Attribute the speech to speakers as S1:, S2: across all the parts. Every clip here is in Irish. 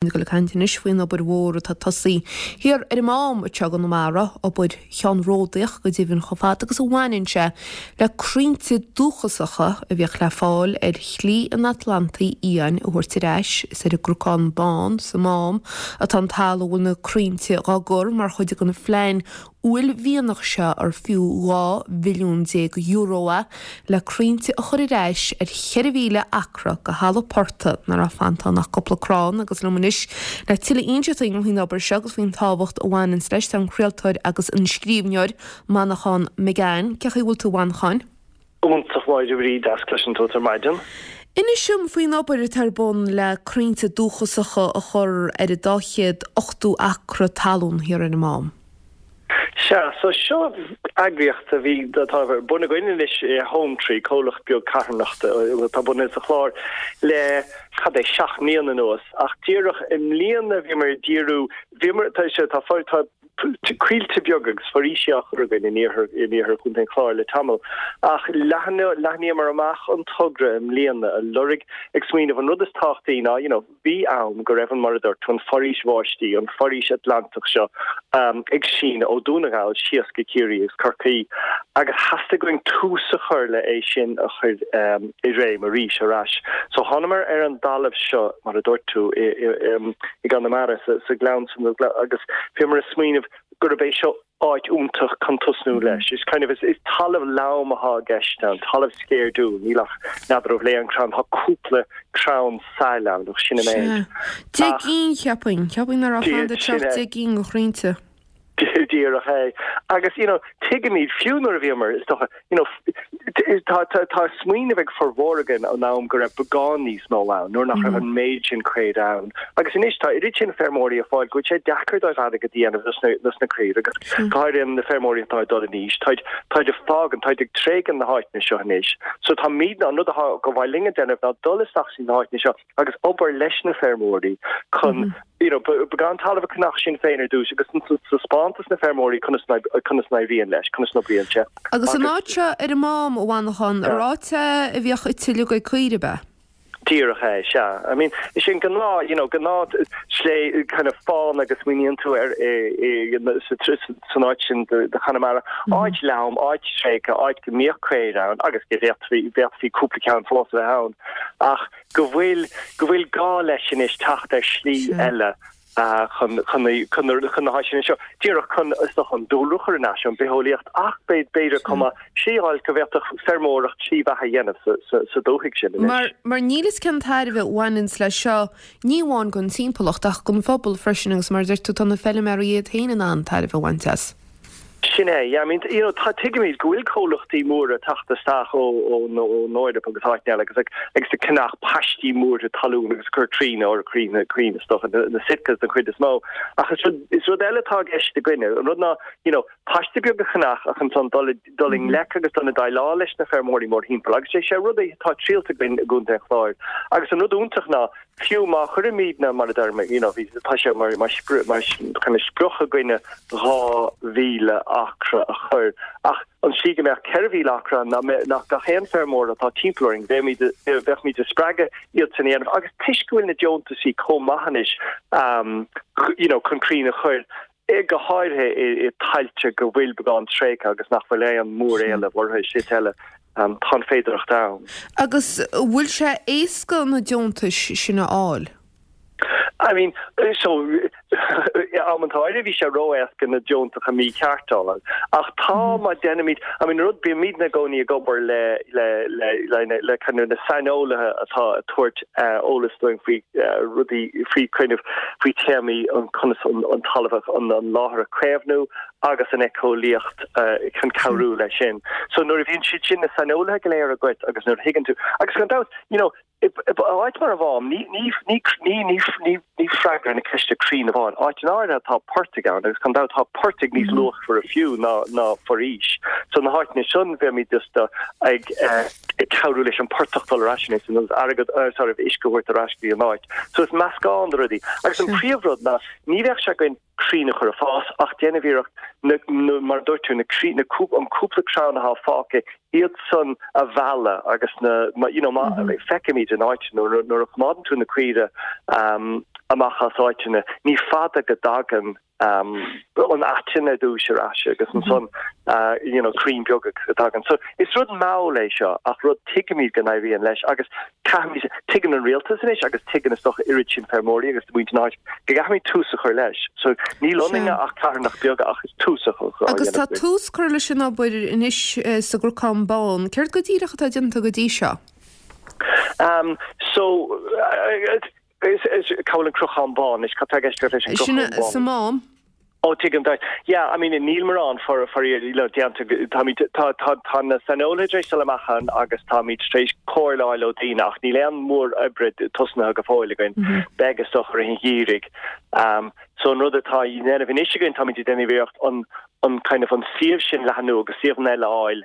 S1: Ag dul ag caint anois faoin obair mhór atá tosaithe thiar ar an Mám anseo i gConamara, obair cheannródaíoch go deimhin chomh fada agus a bhaineann sé le crainnte dúchasacha a bhíodh le fáil ar Shlí an Atlantaigh Fhiáin a thabhairt ar ais. Is ar an gCnocán Bán sa Mám atá an talamh a bhfuil na crainnte dhá gcur mar chuid den phlean uaillmhianach seo ar fiú €12 mhilliún é le crainnte a chur ar ais ar 4,000 acra de thalamh portaigh ina raibh fanta ann ach cúpla crann agus liom anois le tuilleadh a inseacht dúinn faoin obair seo agus faoin tábhacht a bhaineanns leis tá an craoltóir agus an scríbhneoir Manchán Magan. Cén chaoi a bhfuil tú a Mhanchain?
S2: Iontach Máire Bhríd, deas cloisint uait ar maidin.
S1: Inis dom faoin obair atá ar bun le crainnte dúchasacha a chur ar an 280 acra talún thiar ar an Mám.
S2: Sea, so seo eagraíocht a bhí, atá ar bun againn anois, Hometree, comhlacht beag carthanachta atá bunaithe sa Chlár le, cad é, 7 mbliana anuas. Ach díreach i mbliana bhíomar ag díriú, bhíomar, tá sé, tá, tá coillte beaga agus foraoisí á chur againn in iarthar, in iarthar Chontae an Chláir le tamall. Ach leathnaíomar amach an togra i mbliana a lorg ag smaoineamh an rud is tábhachtaí ná, you know, Bhí am go raibh an, mar a dúirt tú, an foraois bháistí, an foraois Atlantach seo ag síneadh ó Dún na nGall síos go Ciarraí agus Corcaigh agus theastaigh uainn tús a chur le é sin a chur i réim arís ar ais. So thánamar ar an dtalamh seo, mar a dúirt tú, i gConamara, sa ghleann san agus bhíomar ag smaoineamh gurb é seo áit iontach chun tosnú leis. Is kind of, is talamh lom atá i gceist ann, talamh sceirdiúil, níl ach, n'fheadar an bhfuil aon crann, tá cúpla crann sail ann ach sin an méid.
S1: Sea. 10 gcinn, cheapfainn. Cheapfainn nach raibh fanda teacht 10 gcinn de chrainnte.
S2: Díreach é. Agus, you know, tuigimid, fiú nuair a bhíomar, is dócha, you know, tá, tá, tá smaoineamh ag formhór againn ón am go raibh beagán níos mó ann, nuair nach raibh an méid sin caor ann. Agus anois tá oiread sin feirmeoirí ag fáil go bhfuil sé deacair dóibh airgead a dhéanamh dos na, dos na caoirigh agus go háirithe na feirmeoirí atá ag dul in aois, táid, táid ag fágaint, táid ag tréigean na háiteanna seo anois. So táimidne, an rud atá go mhaith linn a déanamh ná dul isteach sna háiteanna seo agus obair leis na feirmeoirí chun you know, beagán talamh a cheannach sinn féin ar dtús agus taispeáint dos na feirmeoirí conas conas n-éiríonn leis, conas n-oibríonn sé.
S1: Agus an áit seo ar an Mám, a Mhanchain, an áit é a bhíodh ite uilig ag caoirigh, ab ea?
S2: Díreach é, sea. I mean, is é an gnáth, you know, gnáth slé kind of fána go smaoiníonn tú ar i, i, san áit sin de Chonamara, áit lom, áit tréigthe, áit go mbíodh caoirigh ann agus go bhféadfaí, bhféadfaí cúpla ceann fós a bheith ann ach go bhfuil, go bhfuil gá leis anois teacht ar shlí eile chun, chun na, chun na, chun na háiteanna seo, díreach chun, is dócha, an dúlra a chur ar ais, an bitheolaíocht ach b'fhéidir chomh maith slí a fháil go bhféadfadh feirmeoireacht slí bheatha a dhéanamh sa, sa, sa dúthaigh sin anois.
S1: Mar, mar níl fhios cén tairbhe a bhaineanns leis seo, ní amháin don timpeallacht ach don phobal freisin agus mar a deir tú tá na feilméaraí iad féin in ann tairbhe a bhaint as.
S2: Sin é, yeah, I mean, you know, tá, tuigimid go bhfuil comhlachtaí móra ag teacht isteach ó, ón, ón Eoraip agus áiteanna eile agus ag, agus ag ceannach paistí móra talún agus ag cur crainn or crainn, crainn is dócha, na, na Sitkas den chuid is mó. Ach is rud, is rud eile atá i gceist againne, an rud ná, you know, paiste beag a cheannach ach ansan dul i, dul i ngleic agus dul i déileáil leis na feirmeoirí mórthimpeall agus is é rud é atá triailte againn i gContae an Chláir. Agus an rud iontach ná, Fiú má chuirimidne, mar a deirim, you know, bhí, tá sé mar, mar sprioc, mar kind of sprioc againne 2,000 acra a chur, ach an tslí go mbeadh 4,000 acra ann ná ná gach aon feirmeoir atá timpeall orainn, bheimid, bheadh ag spreagadh iad san a dhéanamh agus toisc go bhfuil na deontaisí chomh maith anois, you know, chun crainn a chur, go háirithe i dtailte go bhfuil beagán tréigthe agus nach bhfuil aon mhóréileamh orthu, is eile, tá an féidearthacht ann.
S1: Agus an bhfuil sé éasca na deontais sin a fháil?
S2: I mean, so, amanta áirithe bhí sé ró-éasca na deontacha mícheart a fháil. Ach tá, má deinimid, I mean, rud, bímidne i gcónaí ag obair le, le, le, le, le kind of na saineolaithe atá ag tabhairt eolas dúinn faoi rudaí, faoi kind of, faoi téamaí an conas an talamh, an láthair a chaomhnú agus an éiceolaíocht chun cabhrú leis sin. So nuair a bhíonn siad sin, na saineolaithe go léir agat agus nuair a thuigeann tú, agus gan dabht, you know, i áit mar an Mhám, ní, ní, ní, ní, ní, ní, ní freagra na ceiste crainn amháin. Áiteanna áirithe tá portaigh ann agus gan dabht tá portaigh níos luachmhaire fiú ná, ná foraois. So na háiteanna sin bheimid just ag, ag cabhrú leis an portach dul ar ais anois agus airgead, sorry, uisce a thabhairt ar ais go dtí an áit. So is meascán de rudaí. Agus an príomhrud ná ní bheadh sé againn crainn a chur ag fás ach déanamh iarracht na, na, mar a dúirt tú, na crainn, na cúp, an cúpla crann atá fágtha, iad san a mhealladh agus na, you know, má, feicimid in áit nuair, nuair a choimeádann tú na caoire, um, amach as áiteanna, ní fada go dtagann an aiteann ar dtús ar ais agus ansan you know crainn beaga a thagann. So is rud mall é seo ach rud tuigimid go n-éiríonn leis agus caithfimid, tuigeann an rialtas anois agus tuigeann is dócha oiread sin feirmeoirí agus muintir na háite go gcaithfimid tús a chur leis. So níl ionainn ach carthanacht beaga ach is tús a chur
S1: Agus tá tús curtha leis an obair anois sa gCnocán Bán. Céard go díreach atá déanta go dtí seo?
S2: Um, so, is, is, cá bhfuil an Cnocán Bán anois, cad tá i gceist leis an
S1: Sin
S2: gCnocán Bán?
S1: sa Mám.
S2: Ó, tuigim duit. Yeah, I mean, níl mórán for, faraor, you know, déanta, táimid, tá, tá, tá na saineolaithe tar éis dul amach ann agus táimid tar éis comhairle a fháil ó daoine ach níl aon mhór oibre tosnaithe go fóill againn. Beidh is dócha i rith an gheimhridh. Um, so an rud atá á dhéanamh anois againn, táimid ag déanamh iarracht an, an kind of an suíomh sin leathnú agus suíomhanna eile a fháil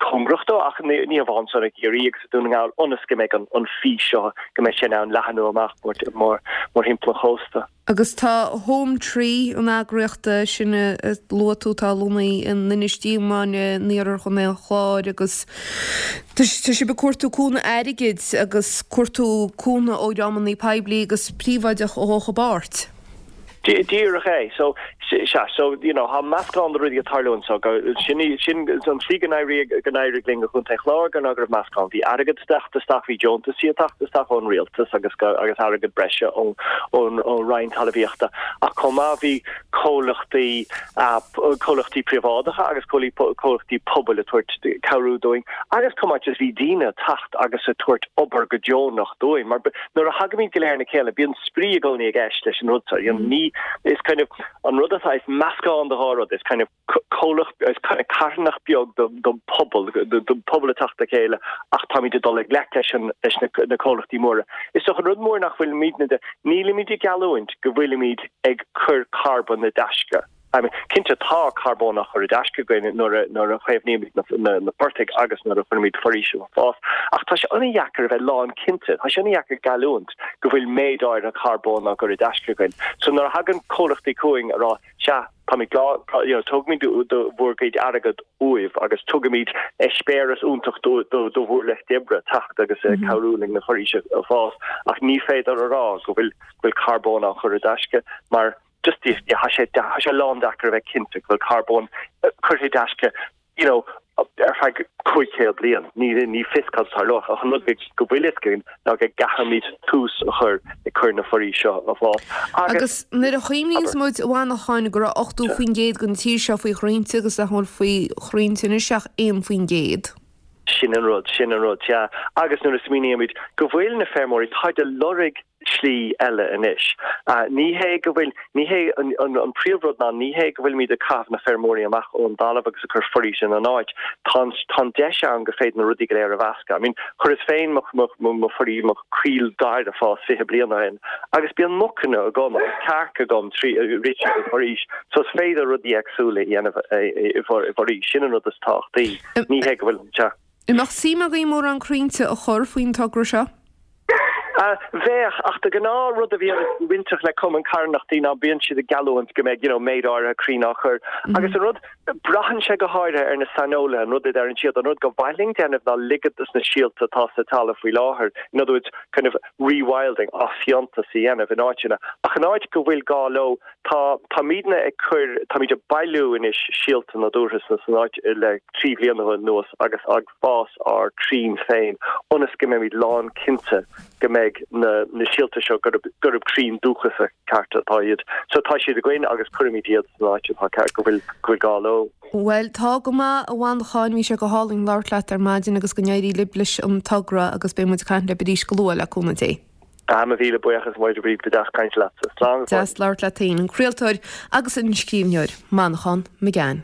S2: cóngarach dó ach ní hamháin san i gCiarraí agus i Dún na nGall ionas go mbeidh an fís seo, go mbeidh sé in ann leathnú amach mórthimpeall an chósta.
S1: Agus tá Home Tree, an eagraíocht sin a luaigh tú, atá lonnaithe in Inis Díomáin in iarthar Chontae an Chláir agus tá sibh ag cuartú cúnamh airgid agus cuartú cúnamh ó dhreamanna poiblí agus príobháideach a ghabhfadh i bpáirt.
S2: Díreach é. So, sea, so, you know, tá meascán de rudaí ag tarlú anso. Go, sin í, sin an tslí go n-éiríodh, go n-éirigh linn i gContae an Chláir gur ná go raibh meascán. Bhí airgead ag teacht isteach, bhí deontaisí ag teacht isteach ón rialtas agus go, agus airgead breise ón, ón, ón Roinn Talmhaíochta. Ach chomh maith bhí comhlachtaí, comhlachtaí príobháideacha agus comhlachtaí pobail ag tabhairt cabhrú dúinn agus chomh maith just bhí daoine ag teacht agus ag tabhairt obair go deonach dúinn mar nuair a thagaimid go léir le chéile bíonn spraoi i gcónaí i gceist leis an rud seo. You know, ní, is kind of, an rud atá, is meascán de dhá rud, is kind of comhlacht, is kind of carthanacht beag don pobal, don pobal ag teacht le chéile ach táimid ag dul i ngleic leis an, leis na, na comhlachtaí móra. Is dócha an rud mór nach bhfuilimidne de, nílimid ag geallúint go bhfuilimid ag cur carbón i dtaisce. I mean, cinnte tá carbón á chur i dtaisce againn nuair a, nuair a chaomhnaímid na, na, na portaigh agus nuair a chuirimid foraois ag fás, ach tá sé an-dheacair a bheith lánchinnte, tá sé an-dheacair geallúint go bhfuil méid áirithe carbóin á gcur i dtaisce againn. So nuair a thagann comhlachtaí chugainn a rá, sea, táimid glá, you know, tógfaimid do bhur gcuid airgead uaibh agus tugaimid eispéireas iontach do, do, do bhur lucht oibre teacht agus cabhrú linn na foraoise a fás, ach ní féidir a rá go bhfuil, go bhfuil carbón á chur i dtaisce mar just tá sé tá sé lándeacair a bheith cinnte go bhfuil carbón curtha i dtaisce you know ar feadh 500 bliain. Ní ní fios cad a tharlóidh ach an rud go bhfuil fhios againn ná go gcaithfimid tús a chur ag cur na foraoise seo a fás
S1: agus Agus nuair a chuimhníonns muid, a Mhanacháin, go raibh 80% den tír seo faoi chrainnte agus nach bhfuil faoi chrainnte anois ach 1%.
S2: Sin an rud, sin an rud, sea. Agus nuair a smaoinímid go bhfuil na feirmeoirí, táid ag lorg slí eile anois. Ní hé go bhfuil, ní hé, an príomhrud ná ní hé go bhfuilimid ag caitheamh na feirmeoirí amach ón dtalamh agus ag cur foraois ina n-áit. Tá an, tá an deis ann go féidir na rudaí go léir a mheascadh. I mean, chuireas féin mo, mo, mo, mo foraois, mo choill dair ag fás 20 bliain ó shin agus bíonn mucanna agam agus cearca agam trí, rith tríd an bhforaois. So is féidir rudaí éagsúla a dhéanamh i bhforaois. Sin an rud is tábhachtaí. Ní hé go bhfuil, sea.
S1: An mbeadh suim agaibh mórán crainnte a chur faoin togra seo?
S2: Bheadh, ach de ghnáth rud a bhíonn bainteach le cumann carthanachtaí ná bíonn siad ag geallúint go mbeidh you know méid áirithe crainn á chur agus an rud, braitheann sé go háirithe ar na saineolaithe, an rud a deireann siad, an rud go mhaith linn déanamh ná ligean dos na síolta atá sa talamh faoi láthair, in other words kind of rewilding, athfhiántas a dhéanamh in áiteanna ach in áit go bhfuil gá leo Tá, táimidne ag cur, táimid ag bailiú anois síolta nádúrtha sna, san áit le 3 bhliana anuas agus ag fás ár crainn féin ionas go mbeimid lán cinnte go mbeidh na, na síolta seo, gurb, gurb crainn dúchasacha cearta atá iad. So tá siad againn agus cuirfimid iad san áit atá ceart, go bhfuil, go bhfuil gá leo.
S1: Bhuel, tá go maith, a Mhanacháin, bhí sé go hálainn labhairt leat ar maidin agus go n-éirí libh leis an togra agus beidh muid ag caint libh arís go luath le cúnamh Dé.
S2: Ah, mo mhíle buíochas, Máire Bríd, ba deas caint leatsa. Slán go
S1: fóill. Deas labhairt leat féin, an craoltóir agus an scríbhneoir, Manchán Magan.